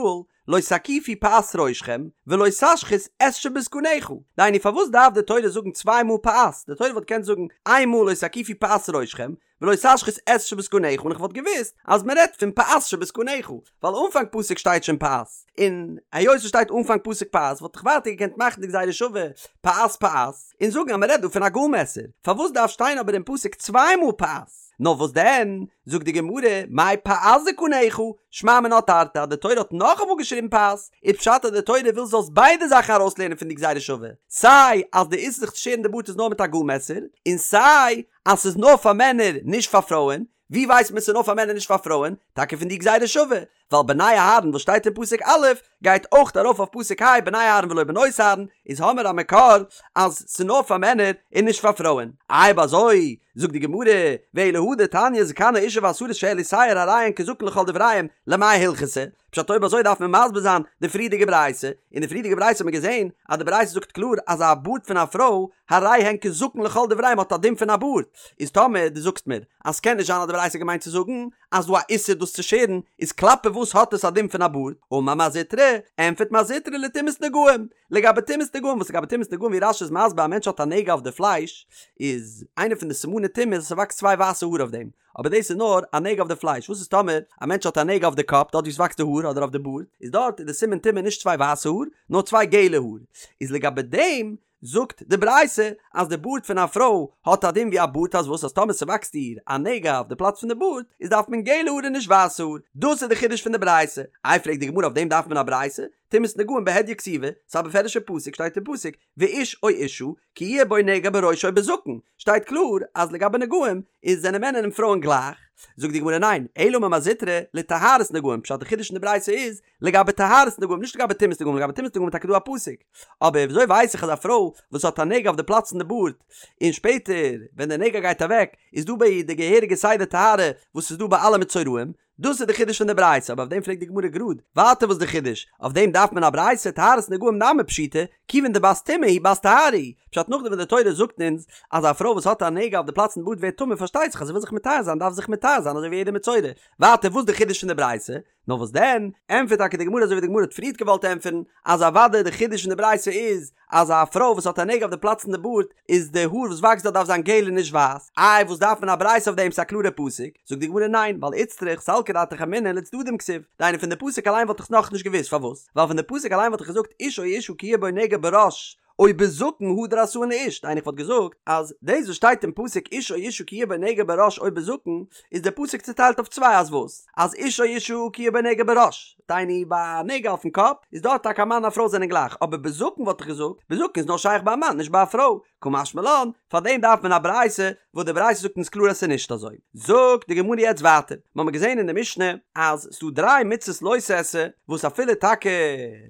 לא תקיפו פאת ראשכם ולא תשחית את שבזקנך, דהיינו פארוואס דארף די תורה זאגן צוויי מאל פאת, די תורה וואלט געקענט זאגן איין מאל לא תקיפו פאת ראשכם ולא תשחית את שבזקנך און איך וואלט געוואוסט אז מען רעדט פון פאת שבזקנך ווייל אנפאנג פסוק שטייט שוין פאת און היות עס שטייט אנפאנג פסוק פאת וואלט איך ווייטער געקענט מאכן די גזירה שווה פאת פאת און זאגן אז מען רעדט דא פון א גאל מעסער פארוואס דארף שטיין אבער אין פסוק צוויי מאל פאת נאר וואס דען זאגט די גמרא מאי פאת זקנך שמע מינה תרתי אז די תורה האט נאכאמאל געשריבן פאת איז פשט אז די תורה וויל זאלסט ביידע זאכן ארויסלערנען פון די גזירה שווה סיי אז די איסור זיך צו שערן די בארד איז נאר מיט א גאל מעסער און סיי אז ס'איז נאר פאר מענער נישט פאר פרויען, ווי ווייסט מען ס'איז נאר פאר מענער נישט פאר פרויען? טאקע פון די גזירה שווה, ווייל בני אהרן וואס שטייט אין פסוק א', גייט אויך ארויף אויף פסוק ה' בני אהרן ולא בנות אהרן, איז האמער א מקור אז ס'נאר פאר מענער און נישט פאר פרויען. אויב אזוי זאגט די גמרא, ואלא הא דתניא זקן האשה והסריס שהעלו שער הרי הן כזקן לכל דבריהם, למאי הלכתא? פשט אויב אזוי דארף מען מסביר זיין די פריערדיגע ברייתא, אין די פריערדיגע ברייתא האט מען געזען אז די ברייתא זאגט קלאר אז א בארד פון א פרוי הרי הן כזקן לכל דבריהם האט א דין פון א בארד, איז טאמער דו זאגסט מיר אז ס'קען נישט זיין אז די ברייתא האט געמיינט צו זאגן אז דא א איסור דאס צו שערן, איז כלפי וואס האט עס א דין פון א בארד? אמר מר זוטרא, ענטפערט מר זוטרא לטומאת נגעים, לגבי טומאת נגעים, וואס לגבי טומאת נגעים ווי רש"י איז מסביר א מענטש האט א נגע אויף די פלייש, איז איינע פון די סימני טומאה אז ס'וואקסט צוויי ווייסע האר אויף דעם, אבער דאס איז נאר א נגע אויף די פלייש, וואס איז טאמער א מענטש האט א נגע אויף די קאפ דארט ווי עס וואקסט די האר אדער אויף די בארד, איז דארט איז די סימן טומאה נישט צוויי ווייסע האר, נאר צוויי געלע האר, איז לגבי דעם זאגט די ברייתא אז די בארד פון א פרוי האט א דין ווי א בארד אז וואס אז טאמער ס'וואקסט איר א נגע אויף די פלאץ פון די בארד איז דארף מען געלע האר און נישט ווייסע האר, דאס איז די חידוש פון די ברייתא, איי פרעגט די גמרא אויף דעם דארף מען א ברייתא? טומאת נגעים בהדיא כתיבא, ס'איז א בפירוש'ע פסוק שטייט אין פסוק ואיש או אשה כי יהיה בו נגע בראש או בזקן, שטייט קלאר אז לגבי נגעים איז זענען מענער און פרויען גלייך, זאגט די גמרא ניין, אלא אמר מר זוטרא לטהרת נגעים, פשט די חידוש אין די ברייתא איז לגבי טהרת נגעים נישט לגבי טומאת נגעים, לגבי טומאת נגעים איז טאקע דא א פסוק, אבער וויאזוי ווייס איך אז א פרוי וואס האט א נגע אויף די פלאץ פון די בארד און שפעטער ווען די נגע גייט אוועק איז דא ביי איר די געהעריגע סדר טהרה וואס איז דא ביי אלע מצורעים, דאס איז די חידוש פון די ברייתא, אבער אויף דעם פרעגט די גמרא גראד, ווייטער וואס די חידוש? אויף דעם דארף מען א ברייתא, טהרת נגעים נמי פשיטא, כיוון דבת טומאה היא בת טהרה היא, פשט נאכדעם ווען די תורה זאגט אונז אז א פרוי וואס האט א נגע אויף די פלאץ פון די בארד ווערט טמא פארשטייט זיך אז זי וויל זיך מטהר זיין דארף זי זיך מטהר זיין אזוי ווי יעדע מצורע, ווייטער וואס די חידוש פון די ברייתא? נאר וואס דען, ענטפערט טאקע די גמרא אזוי ווי די גמרא האט פריערט געוואלט ענטפערן, אז אוודאי די חידוש פון די ברייתא איז אז א פרוי וואס האט א נגע אויף די פלאץ פון די בארד איז די האר וואס וואקסט דארט דארף זיין געל און נישט ווייס, איי וואס דארף מען א ברייתא אויף דעם ס'איז א קלארע פסוק, זאגט די גמרא ניין ווייל איצטריך סלקא דעתך אמינא לצדדים כתיב, דהיינו פון די פסוק אליין וואלט איך נאכנישט געוואוסט פארוואס, ווייל פון די פסוק אליין וואלט איך געזאגט איש או אשה כי יהיה בו נגע בראש או בזקן הדר עשאן לאיש, דהיינו איך וואלט געזאגט אז דאס וואס שטייט אין פסוק איש או אשה כי יהיה בו נגע בראש או בזקן איז דער פסוק צוטיילט אויף צוויי אז וואס? אז איש או אשה כי יהיה בו נגע בראש, דהיינו ביי א נגע אויפן קאפ איז דארט טאקע א מאן און א פרוי זענען גלייך, אבער בזקן וואלט איך געזאגט, בזקן איז נאר שייך ביי א מאן נישט ביי א פרוי, קא משמע לן, פארדעם דארף מען א ברייתא, וואס די ברייתא זאגט אונז קלאר אז ס'איז נישט אזוי. זאגט די גמרא יעצט ווייטער, מ'האמיר געזען אין די משנה אז ס'דא דריי מצות לא תעשה, וואס אפילו טאקע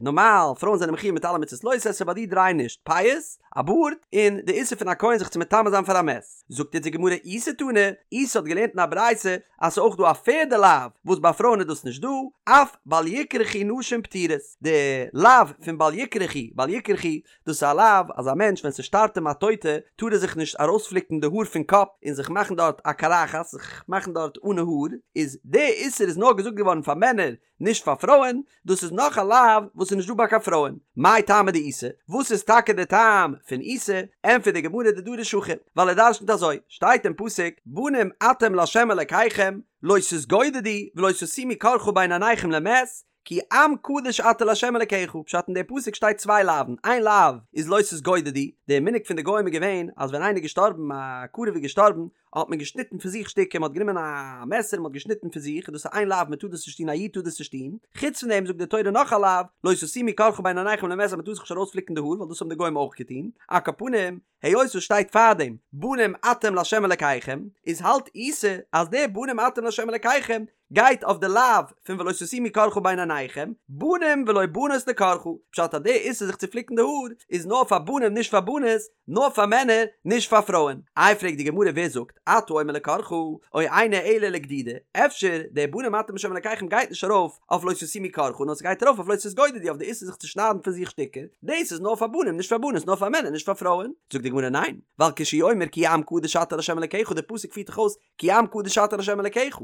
נארמאל פרויען זענען מחיוב מיט אלע מצות לא תעשה, ביי די דריי נישט, פאות, א בארד, און די איסור פון א כהן זיך צו מטמא זיין פאר א מת. זאגט יעצט די גמרא איסי תנא, איסי האט געלערנט אין א ברייתא אז ס'איז אויך דא א פערדע לאו וואס ביי פרויען איז דאס נישט דא, אף בל יקרחו נשים פטורות, די לאו פון בל יקרחו, בל יקרחו, דאס איז א לאו אז א מענטש ווען ס'שטארבט אים א טויטע טאר ער זיך נישט ארויספליקן די האר פון קאפ און זיך מאכן דארט א קרחת, זיך מאכן דארט אנע האר, איז די איסור איז נאר געזאגט געווארן פאר מענער נישט פאר פרויען, דאס איז נאך א לאו וואס איז נישט דא ביי קיין פרויען. מאי טעמא דאיסי? וואס איז טאקע די טעם פון איסי? ענטפערט די גמרא דדריש הכי, ווייל ער דרשנ'ט אזוי, שטייט אין פסוק, בנים אתם לה' אלקיכם, לא תתגודדו ולא תשימו קרחה בין עיניכם למת, כי עם קדוש אתה לה' אלקיך, פשט אין די פסוק שטייט צוויי לאוו'ן, איין לאו איז לא תתגודדו, די מנהג פון די גוים איז געווען אז ווען איינער איז געשטארבן, א קרוב איז געשטארבן, האט מען געשניטן פון זיך שטיקער, מען האט גענומען א מעסער און מען האט געשניטן פון זיך, דאס איז איין לאו מען טאר דאס נישט טון א איד טאר דאס נישט טון, חוץ פון דעם זאגט די תורה נאך א לאו, לא תשימו קרחה בין עיניכם למת אז מען טאר זיך נישט ארויספליקן די האר ווייל דאס האבן די גוים אויך געטון, על כל פנים, היות עס שטייט פארדעם בנים אתם לה' אלקיכם, איז האלט איסי אז די בנים אתם לה' אלקיכם גייט אויף די לאו פון ולא תשימו קרחה בין עיניכם, בנים ולא בנות לקרחה, פשט אז די איסור זיך צו פליקן די האר איז נאר פאר בנים נישט פאר בנות, נאר פאר מענער נישט פאר פרויען. איי פרעגט די גמרא ווער זאגט אתה אומר לקרחה או אינו אלא לגדידה, אפשר די בנים אתם לה' אלקיכם גייט נישט ארויף אויף לא תשימו קרחה נאר ס'גייט ארויף אויף לא תתגודדו אויף די איסור זיך צו שניידן פון זיך שטיקער, דאס איז נאר פאר בנים נישט פאר בנות נאר פאר מענער נישט פאר פרויען, זאגט די גמרא ניין, ווייל כשהוא אומר כי עם קדוש אתה לה' אלקיך די פסוק פירט דאך אויס כי עם קדוש אתה לה' אלקיך,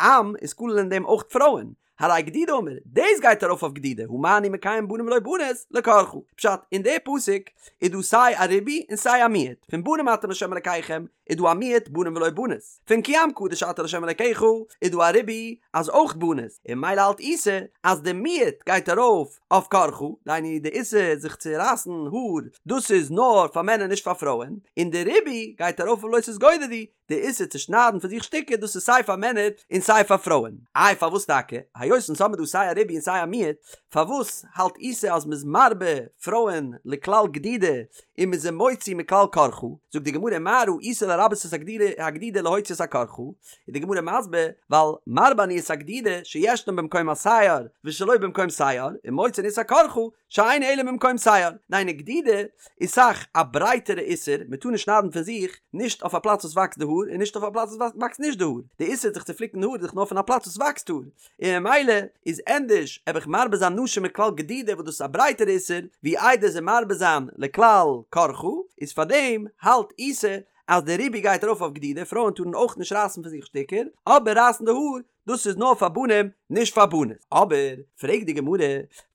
עם איז כולל אין דעם אויך פרויען, הרי גדידה אמור, דאס גייט ארויף אויף גדידה, הא מה אני מקיים בנים ולא בנות, לקרחה. פשט, אין די פסוק איז דא סיי א ריבוי און סיי א מיעוט, פון בנים אתם לה' אלקיכם איז דא א מיעוט בנים ולא בנות, פון כי עם קדוש אתה לה' אלקיך איז דא א ריבוי אז אויך בנות, און ממילא האלט איסי אז די מיעוט גייט ארויף אויף קרחה, דהיינו די איסור זיך צו רייסן האר, דאס איז נאר פאר מענער נישט פאר פרויען, און די ריבוי גייט ארויף אויף לא תתגודדו, די איסור צו שניידן פון זיך שטיקער דאס איז סיי פאר מענער און סיי פאר פרויען. איי פארוואס טאקע? היות אונז האבן דא סיי א ריבוי און סיי א מיעוט, פארוואס האלט איסי אז מ'איז מרבה פרויען לכלל גדידה און מ'איז זיי מוציא מכלל קרחה? זאגט די גמרא מה ראית לרבות את הגדידה להוציא את הקרחה? איז די גמרא מסביר, ווייל מרבה אני את הגדידה שישנה במקום השער ושלא במקום שער, און מוציא אני את הקרחה שאינה אלא במקום שער, דהיינו גדידה איז אסאך א ברייטערע איסור, מען טאר נישט שניידן פון זיך, נישט אויף א פלאץ וואס וואקסט די האר און נישט אויף א פלאץ וואס וואקסט נישט די האר, די איסור זיך צו פליקן די האר איז דאך נאר פון א פלאץ וואס וואקסט האר, און ממילא איז ענדערש וועל איך מרבה זיין נשים מכלל גדידה וואס דאס איז א ברייטערע איסור, ווי איידער זיי מרבה זיין לכלל קרחה, איז פארדעם האלט איסי אז די ריבוי גייט ארויף אויף גדידה, פרויען טארן אויך נישט רייסן פון זיך שטיקער, אבער רייסן די האר דאס איז נאר פאר בנים נישט פאר בנות. אבער, פרעגט די גמרא,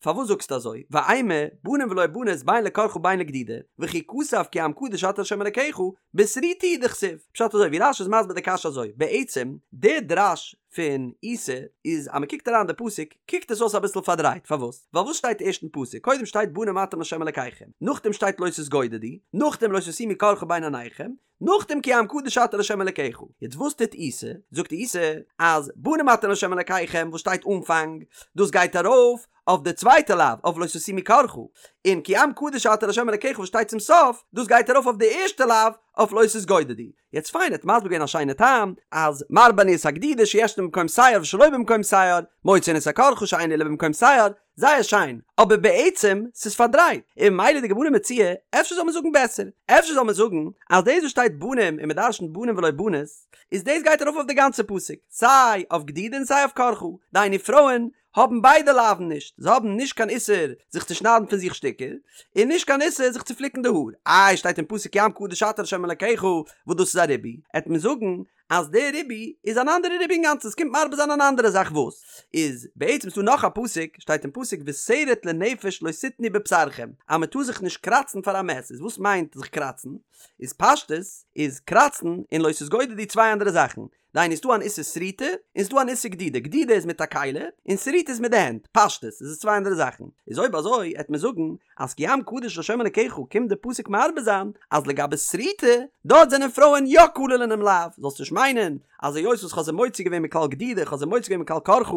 פארוואס זאגסטו אזוי, ואימא, בנים ולא בנות בין לקרחה בין לגדידה, וכי כתב כי עם קדוש אתה לה' אלקיך, בשריטה הוא דכתיב. פשט אזוי, ווי רש"י איז מסביר די קשיא אזוי, בעצם, די דרש פון איסי איז אז מען קוקט אריין די פסוק, קוקט עס אויס אביסל פארדרייט, פארוואס? ווייל וואס שטייט ערשט אין פסוק? קודם שטייט בנים אתם לה' אלקיכם, נאכדעם שטייט לא תתגודדו, נאכדעם לא תשימו קרחה בין עיניכם, נאכדעם כי עם קדוש אתה לה' אלקיך. יעצט וואס טוט איסי? זאגט איסי אז בנים אתם לה' אלקיכם וואס שטייט אנפאנג, דאס גייט ארויף אויף די צווייטע לאו אויף לא תשימו קרחה, און כי עם קדוש אתה לה' אלקיך וואס שטייט צום סוף, דאס גייט ארויף אויף די ערשטע לאו אויף לא תתגודדו. יעצט פיין ער האט מסביר געווען א שיינע טעם אז מרבה אני את הגדידה שישנה במקום שער ושלא במקום שער, מוציא אני את הקרחה שאינה אלא במקום שער, זייער שיין, אבער בעצם ס'איז פארדרייט, און ממילא די גמרא מציע, אפשר זאל מען זאגן בעסער, אפשר זאל מען זאגן אז דאס וואס שטייט בנים און מ'דרשנ'ט בנים ולא בנות, איז דאס גייט ארויף אויף די גאנצע פסוק, סיי אויף גדידה און סיי אויף קרחה, דהיינו פרויען האבן ביידע לאוו'ן נישט, זיי האבן נישט קיין איסור זיך צו שניידן פון זיך שטיקער, און נישט קיין איסור זיך צו פליקן די האר, איי שטייט אין פסוק כי עם קדוש אתה לה' אלקיך וואס דאס איז א ריבוי, עט מען זאגן אז דער ריבוי איז אן אנדערע ריבוי אינגאנצן, עס קומט מרבה זיין אן אנדערע זאך וואס איז בעצם ס'דא נאך א פסוק, שטייט אין פסוק ושרט לנפש לא תתנו בבשרכם, אז מען טאר זיך נישט קראצן פאר א מת, איז וואס מיינט זיך קראצן? איז פשטות איז קראצן און לא תתגודדו צוויי אנדערע זאכן, דהיינו ס'דא אן איסור שריטה און ס'דא אן איסור גדידה, גדידה איז מיט א כלי און שריטה איז מיט די הענט, פשטות איז עס צוויי אנדערע זאכן, איז אויב אזוי העט מען זאגן אז כי עם קדוש לה' אלקיך קומט די פסוק מרבה זיין אז לגבי שריטה דארט זענען פרויען יא כלול אינעם לאו, זאלסט נישט מיינען אז היות וואס כ'האב זיי מוציא געווען מכלל גדידה כ'האב זיי מוציא געווען מכלל קרחה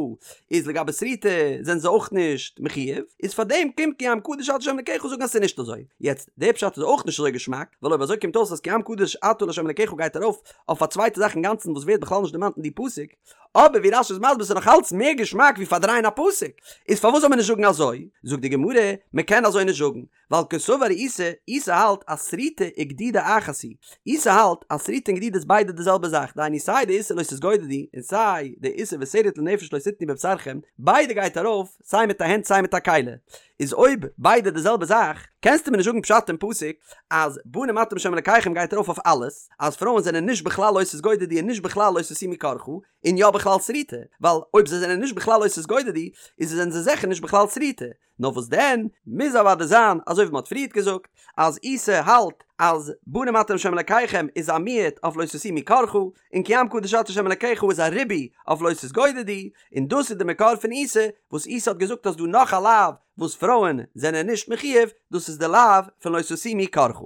איז לגבי שריטה זענען זיי אויך נישט מחויב, איז פארדעם קומט כי עם קדוש אתה לה' אלקיך זאגן אז ס'איז נישט אזוי. יעצט די פשט איז אויך נישט אזוי געשמאק, ווייל אויב אזוי קומט אויס אז כי עם קדוש אתה לה' אלקיך גייט ארויף אויף א צווייטע זאך אינגאנצן וואס ווערט בכלל נישט דערמאנט אין די פסוק, אבער ווי רש"י איז מסביר ס'איז נאך אלץ מער געשמאק ווי פארדרייען א פסוק, איז פארוואס זאל מען נישט זאגן אזוי? זאגט די גמרא, מען קען אזוי נישט זאגן, ווייל קסבר איסי, איסי האלט אז שריטה וגדידה אחת היא, איסי האלט אז שריטה און גדידה איז ביידע די זעלבע זאך, דהיינו סיי די איסור לא תתגודדו און סיי די איסור ושרט לנפש לא תתנו בבשרכם, ביידע גייט ארויף סיי מיט א הענט סיי מיט א כלי, איז אויב ביידע די זעלבע זאך, קענסטו מיר נישט זאגן פשט אין פסוק אז בנים אתם לה' אלקיכם גייט ארויף אויף אלעס, אז פרויען זענען נישט בכלל לא תתגודדו און נישט בכלל לא תשימו קרחה, און יא בכלל שריטה, ווייל אויב זיי זענען נישט בכלל לא תתגודדו, איז זענען זיי זיכער נישט בכלל שריטה. נאר וואס דען, מוז אוודאי זיין אזוי ווי מען האט פריערט געזאגט, אז איסי האלט אז בנים אתם לה' אלקיכם איז א מיעוט אויף לא תשימו קרחה, און כי עם קדוש אתה לה' אלקיך איז א ריבוי אויף לא תתגודדו, און דאס איז די מקור פון איסי, וואס איסי האט געזאגט אז דא נאך א לאו וואס פרויען זענען נישט מחויב, דאס איז די לאו פון לא תשימו קרחה.